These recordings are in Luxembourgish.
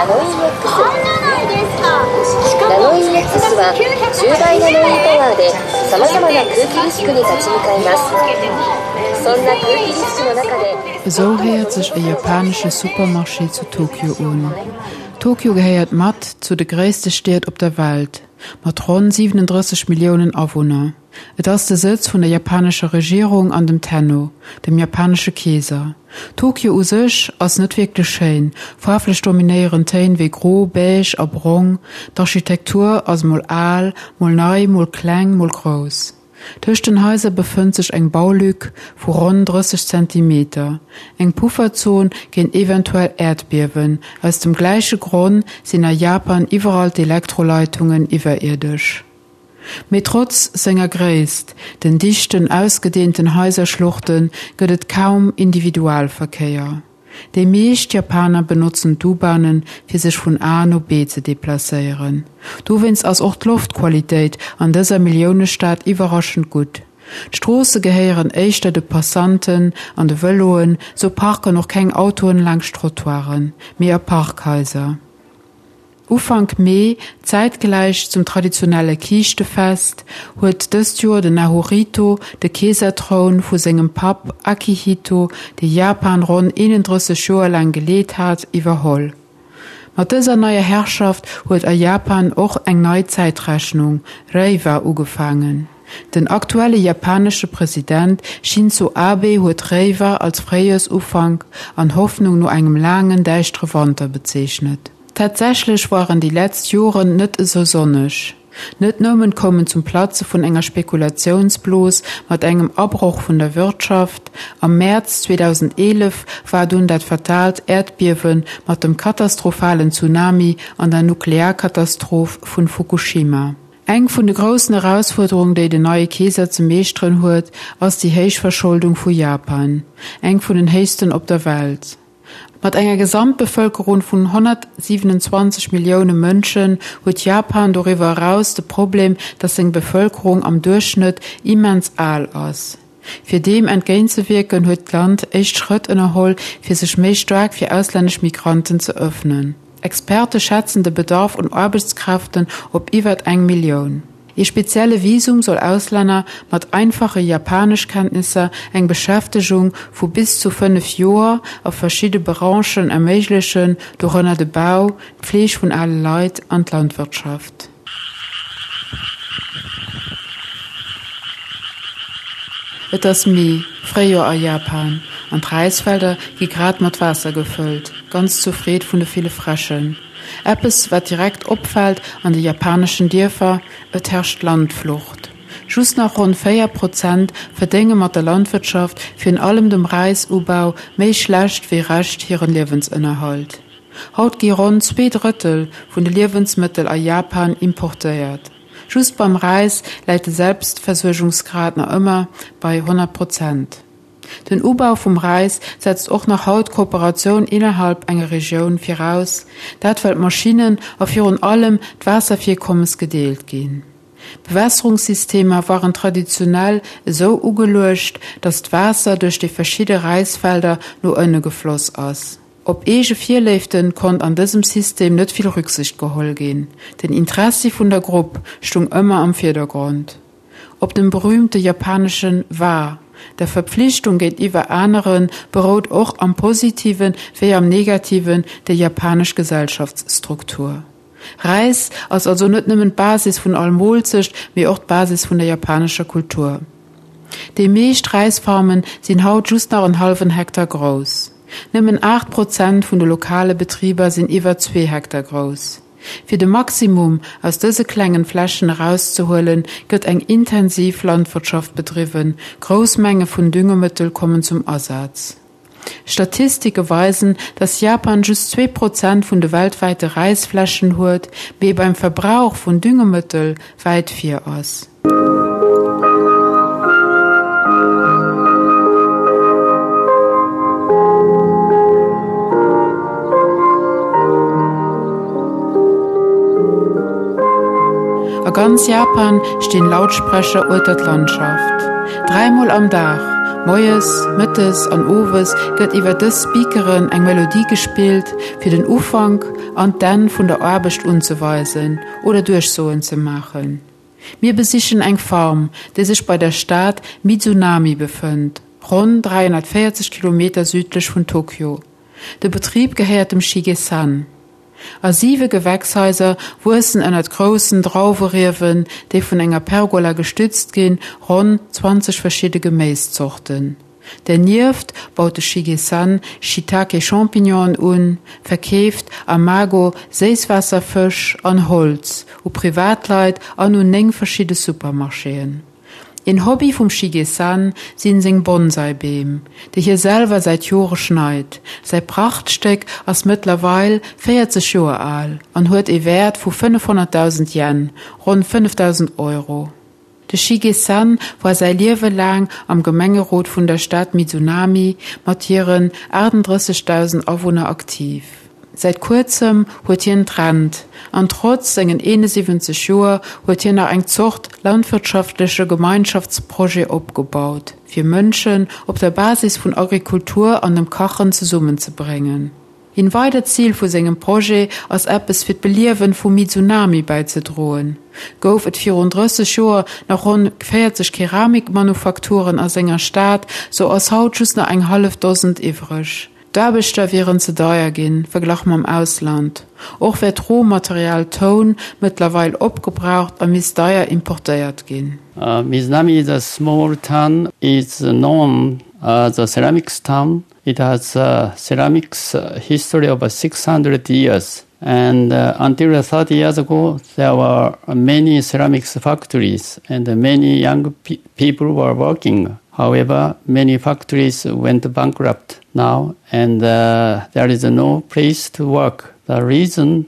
ナノイー X は10倍ナノイーパワーでさまざまな空気リスクに立ち向かいます。そんな空気リスクの中で Esou héiert sech e japanesche Supermarché zu Tokio un. Tokio gehéiert mat zu de gréisste Stied op der Welt, mat ronn 37 Milliounen Awunner. Et ass de Sëtz vun der japanescher Regierung an dem Tenno, dem japanesche Keeser. Tokio u sech ass net wierklech schéin, faarflech dominéieren Téin wéi gro, beige a brong, d'Architektur ass mol al, mol nei, mol kleng, mol grouss. Tëscht den Haiser befënnt sech eng Baulück vu ronn 30 Zentimeter, eng Pufferzon géint eventuell Äerdbiewen. Aus dem gläiche Gronn sinn a Japan iwwerall d'Elektroleitungen iwwerierdesch. Mee trotz senger Gréisst, den dichten, ausgedeenten Haiserschluchten, gëtt et kaum Individualverkéier. Déi meescht Japaner benotzen d'U-Bahnen, fir sech vun A no B ze deplacéieren. Dowéinst ass och d'Loftqualitéit an dëser Milliounestad iwwerraschend gutt. D'Stroosse gehéieren éischter de Passanten an de Vëloen, sou parken och keng Autoen laangscht Trottoiren, mee a Parkhaiser. Ufank Mee, zäitgläich zum traditionelle Kiischtefest, huet dëst Joer den Naruhito de Keesertroun vu sengem Papp Akihito, dee Japan ronn 31 Joer laang geleet hat, iwwerholl. Mat dëser neier Herrschaft huet a Japan och eng nei Zäitrechnung, Reiwa, ugefaangen. Den aktuelle japanesche President Shinzo Abe huet Reiwa als Fréijoersufank an Hoffnung no engem laangen, däischtere Wanter bezeechnet. Tatsächlech waren déi letzt Joren net esou sonneg. Net nëmmen koum en zum Platze vun enger Spekulatiounsblos mat engem Abroch vun der Wirtschaft, am Mäerz 2011 war dunn dat fataalt Äerdbiewe mat dem katastrophalen Tsunami an der Nuklearkatastroph vun Fukushima. Eng vun de groussen Erausfuerderung déi den neie Keeser ze meeschteren huet, ass déi héich Verscholdung vu Japan, eng vun den héchsten op der Welt. Mat enger Gesamtbevëlkerung vun 127 Millioune Mënschen huet Japan doriwwer eraus de Problem, datt seng Bevëlkerung am Duerchschnëtt immens al ass. Fir deem entgéintzewierken huet d'Land éischt Schrëtt ënnerholl, fir sech méi staark fir auslännesch Migranten ze ëffnen. Experte schätzen de Bedarf un Aarbechtskräften op iwwert eng Millioun. Ee spezielle Visum soll Auslänner mat einfache Japaneschkenntnisser eng Beschäftegung vu bis zu 5 Joer a verschidde Branchen erméiglechen, dorënner de Bau, d'Fleeg vun ale Leit an d'Landwirtschaft. Et ass Mee, Fréijoer a Japan, an d'Räisfelder gi grad mat Waasser gefëllt, ganz zur Freed vun de ville Fräschen. Eppes wat direkt opfält an de japaneschen Dierfer, et herrscht Landflucht. Just nach ronn 4 Prozent verdénge mat der Landwirtschaft, virun allem dem Räisubau, méi schlecht wéi recht hiren Liewensënnerhalt. Haut gi ronn 2 Drëttel vun de Liewensmëttel a Japan importéiert. Just beim Räis läit de Selbstversuergungsgrad nach ëmmer bei 100 Prozent. Den Ubau vum Räis setzt och nach haut Kooperatioun innerhalb enger Regioun viraus, dat well d'Maschinnen a virun allem d'Waasservirkommes gedeelt ginn. Bewässerungssystemer waren traditionell esou ugeluecht, datt d'Waasser duerch déi verschidde Räisfelder no ënne gefloss ass. Op eege Virléifte konnt an dësem System net vill Rücksicht geholl ginn, den Interessi vun der Grupp stung ëmmer am Virdergrond. Op dem berühmte japaneschen Wa, der Verpflichtung géintiwwer aneren, berout och am Positiven wéi am Negativen déi japanesch Gesellschaftsstruktur. Räis ass also net nëmmen d'Basis vun all Moolzecht, mee och d'Basis vun der japanescher Kultur. Déi meescht Räisfarmen sinn haut just nach en hallwen Hektar grouss. Nëmmen 8 Prozent vun de lokale Betriber sinn iwwer zwee Hektar grouss. Fir de Maximum aus dëse klengen Flächen erauszehuelen, gëtt eng intensiv Landwirtschaft bedriwwen, grouss Menge vun Düngemëttel kommen zum Asaz. Statistike weisen, dass Japan just 2 Prozent vun de weltwäite Räisflächen huet, mee beim Verbrauch vun Düngemëttel wäit vir ass. A ganz Japan stinn Lautsprecher ueter d'Landschaft. Dräimol am Dag, moies, mëttes an owes, gëtt iwwer dës Speakeren eng Melodie gespillt, fir den Ufank. an d'Enn vun der Aarbecht unzeweisen oder Duerchsoen ze maachen. Mir besichen eng Farm, déi sech bei der Stad Mizunami befënnt, ronn 340 Kilometer südlech vun Tokio. De Betrib gehéiert dem Shige-san. A siwe Gewächshaiser wuessen ënnert groussen Drauweriewen, déi vun enger Pergola gestützt ginn, ronn 20 verschidde Geméiszorten. Dernieft baut de Shige-san Shiitake-Champignonen un, verkeeft Amago Séisswaasserfësch an Holz u Privatleit an un 9 verschidde Supermarchéen. Een Hobby vum Shige-san sinn seng Bonsai-Beem, déi hie selwer säit Jore schneit. Säi Prachtstéck ass mëttlerweil 40 Joer al an huet ee Wäert vu 500.000 Yen, ronn 5.000 Euro. De Shige-san war säi Liewe laang am Gemengerot vun der Stad Mizunami mat hiren 38.000 Awunner aktiv. Säit kuerzem huet hien d'Rent an trotz sengen 71 Joer huet hien nach eng Zort landwirtschaftleche Gemeinschaftsprojet opgebaut, fir Mënschen op der Basis vun Agrikultur an dem Kachen zesummenzebréngen. Een weidert Zil vu sengem Projet ass eppes fir d'Beliewen vu Mizunami bäizedroen. Gouf et virun 30 Joer nach ronn 40 Keramikmanufakturen a senger Stad, sou ass haut just nach eng hallef Dosend iwwreg. D'Aarbechter wieren ze deier ginn, verglach mam Ausland. Och wär d'Rohmaterial Toun mëttlerweil opgebraucht a misst deier importéiert ginn. Mizunami is a small town is known as a ceramics town. It has a ceramics history of 600 years. And uh, until 30 years ago, there were many ceramics factories and many young pe people were working. However, many factories went bankrupt now and uh, there is no place to work. The reason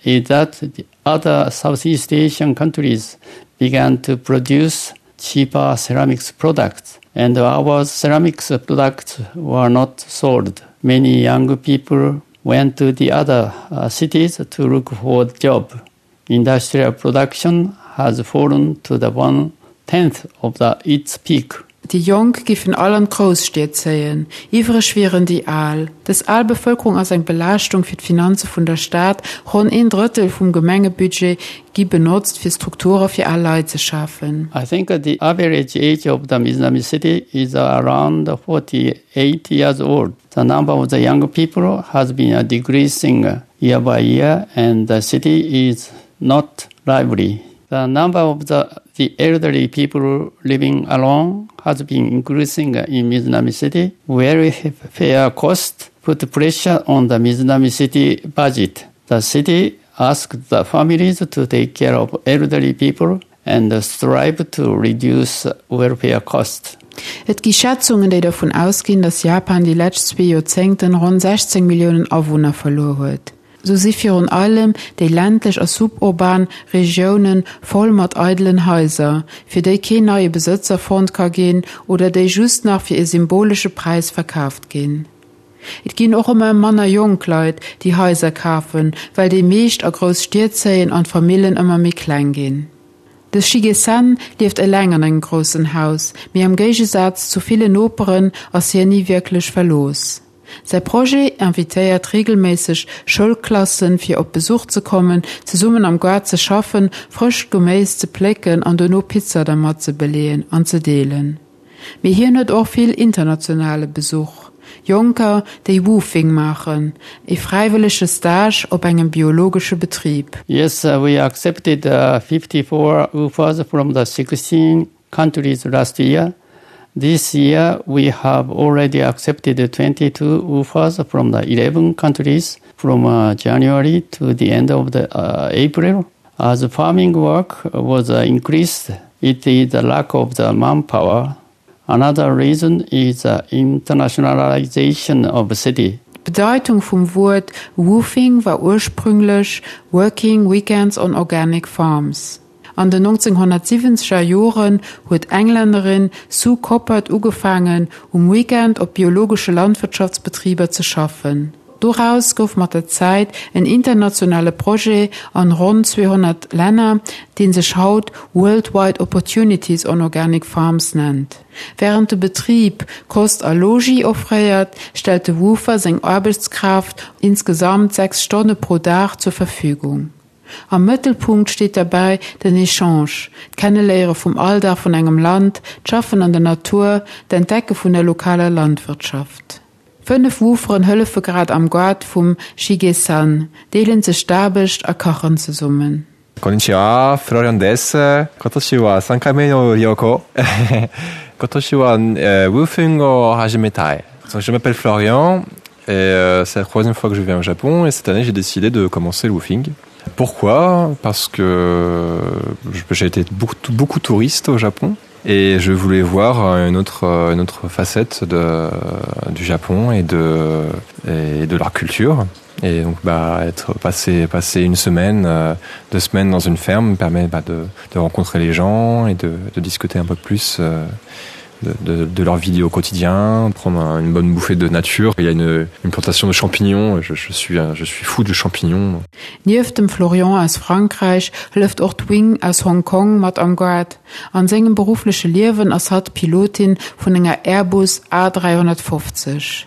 is that the other Southeast Asian countries began to produce cheaper ceramics products and our ceramics products were not sold. Many young people went to the other uh, cities to look for a job. Industrial production has fallen to the one tenth of the, its peak. Déi Jonk giffen all an d'Grousstied zéien, iwwreg wieren déi Al. Dës al Bevëlkerung ass eng Belaaschtung fir d'Finanze vun der Stad, ronn een Drëttel vum Gemengebudget gi benotzt fir Strukture fir al Leit ze schafen. I think the average age of the Mizunami City is around 48 years old. The number of the young people has been decreasing year by year and the city is not lively. The number of the, the elderly people living alone has been increasing in Mizunami City. Welfare costs put pressure on the Mizunami City budget. The city asked the families to take care of elderly people and strive to reduce welfare costs. Et gi Schätzungen, déi dervun ausginn, datt Japan déi lescht zwee Joerzéngten ronn 16 Milliounen Awunner verluer huet. Sou si virun allem déi ländlech a suburban Regioune voll mat eidelen Haiser, fir déi keen neie Besëtzer fonnt ka ginn oder déi just nach fir e symbolesche Präis verkaaft ginn. Et ginn och ëmmer manner jonk Leit, déi Haiser kafen, well déi meescht a grouss Stied zéien an d'Famillen ëmmer méi kleng ginn. De Shige-san lieft eleng an engem groussen Haus, mee am Géigesaz zu villen Noperen ass hien ni wierklech verlooss. Säi Projet invitéiert reegelméisseg Schoulklassen, fir op Besuch ze kommen, zesummen am Gaart ze schaffen, frëscht Geméis ze plécken an dono Pizza dermat ze beleeën an ze deelen. Mee hien huet och vill internationale Besuch, Jonker, déi Woofing maachen, ee fräiwëllege Stage op engem biologesche Betrib. Yes, we accepted 54 WWOOFers from the 16 countries last year. This year we have already accepted 22 WWOOFers from the 11 countries from uh, January to the end of the uh, April. As farming work was uh, increased, it is the lack of the manpower. Another reason is the internationalization of city. D'Bedeitung vum Wuert Woofing war ursprünglech Working Weekends on Organic Farms. An den 1970er Joren huet d'Englännerin Sue Coppard ugefaangen, um Weekend op biologesche Landwirtschaftsbetriber ze schaffen. Doraus gouf mat der Zäit en internationale Projet an ronn 200 Länner, dee sech haut Worldwide Opportunities on Organic Farms nennt. Wärend de Betrib Kost a Logis offréiert, stellt de Woofer seng Aarbechtskraaft insgesamt 6 Stonne pro Dag zur Verfügung. Am Mëttelpunkt steet derbäi den Echange, d'Kenneléiere vum Alldag vun engem Land, d'Schaffen an der Natur, d'Entdecke vun der lokaler Landwirtschaft. 5 Wooferen hëllefe grad am Gaart vum Shige-san, deelen sech d'Aarbecht a kachen zesummen. Konnichiwa, Florian です。今年は3回目の旅行。今年は、えー、WWOOFing を始めたい。Je m'appelle Florian et euh, c'est la troisième fois que je viens au Japon et cette année j'ai décidé de commencer le woofing. Pourquoi Parce que j'ai été beaucoup, beaucoup touriste au Japon et je voulais voir une autre, une autre facette de, du Japon et de, et de leur culture. Et donc bah, être passé, passé une semaine, euh, deux semaines dans une ferme permet bah, de, de rencontrer les gens et de, de discuter un peu plus euh, de, de, de leur vie au quotidien, prendre un, une bonne bouffée de nature. Il y a une, une plantation de champignons, je, je, suis, je suis fou de champignons. Nieft dem Florian aus Frankräich hëlleft och d'Wing aus Hong Kong mat am Gaart. An sengem beruffleche Liewen ass hatt Pilotin vun enger Airbus A350.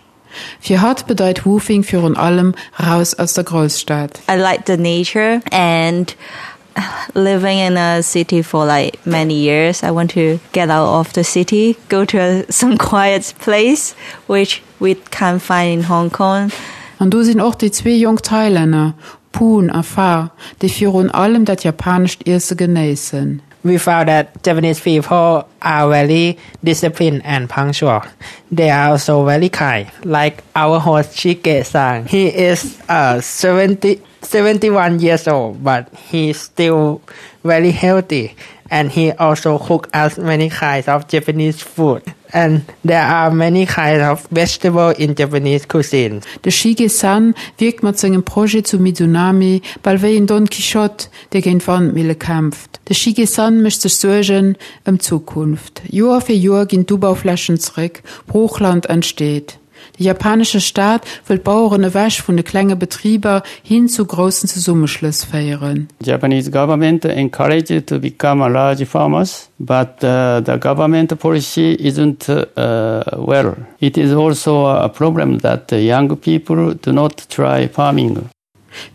Fir hatt bedeit Woofing virun allem raus aus der Grousstad. I like the nature and living in a city for like many years. I want to get out of the city, go to a, some quiet place, which we can't find in Hong Kong. An do sinn och déi zwee jonk Thailänner, Poon a Fa, déi virun allem dat japanescht Iesse genéissen. We found that Japanese people are very disciplined and punctual. They are also very kind, like our host Shige-san. He is uh, 70, 71 years old, but he's still very healthy. And he also cook us many kinds of Japanese food. And there are many kinds of vegetable in Japanese cuisine. De Shige-san wierkt mat sengem Projet zu Mizunami bal wéi en Don Quichotte, dee géint Wandmille kämpft. De Shige-san mécht sech Suergen ëm d'Zukunft. Joer fir Joer ginn d'Ubauflächen zeréck, Broochland entsteet. De japanesche Staat wëll d'Baueren ewech vun de klenge Betriber hin zu groussen Zesummeschlëss féieren. Japanese government encouraged to become a large farmers, but the government policy isn't well. It is also a problem that young people do not try farming.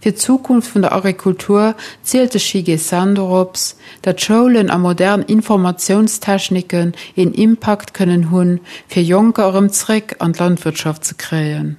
Fir d'Zukunft vun der Agrikultur zielt de Shige San dorops, datt Schoulen a modern Informatiounstechniken een Impakt kënnen hunn, fir Jonker erëm zréck an d'Landwirtschaft ze kréien.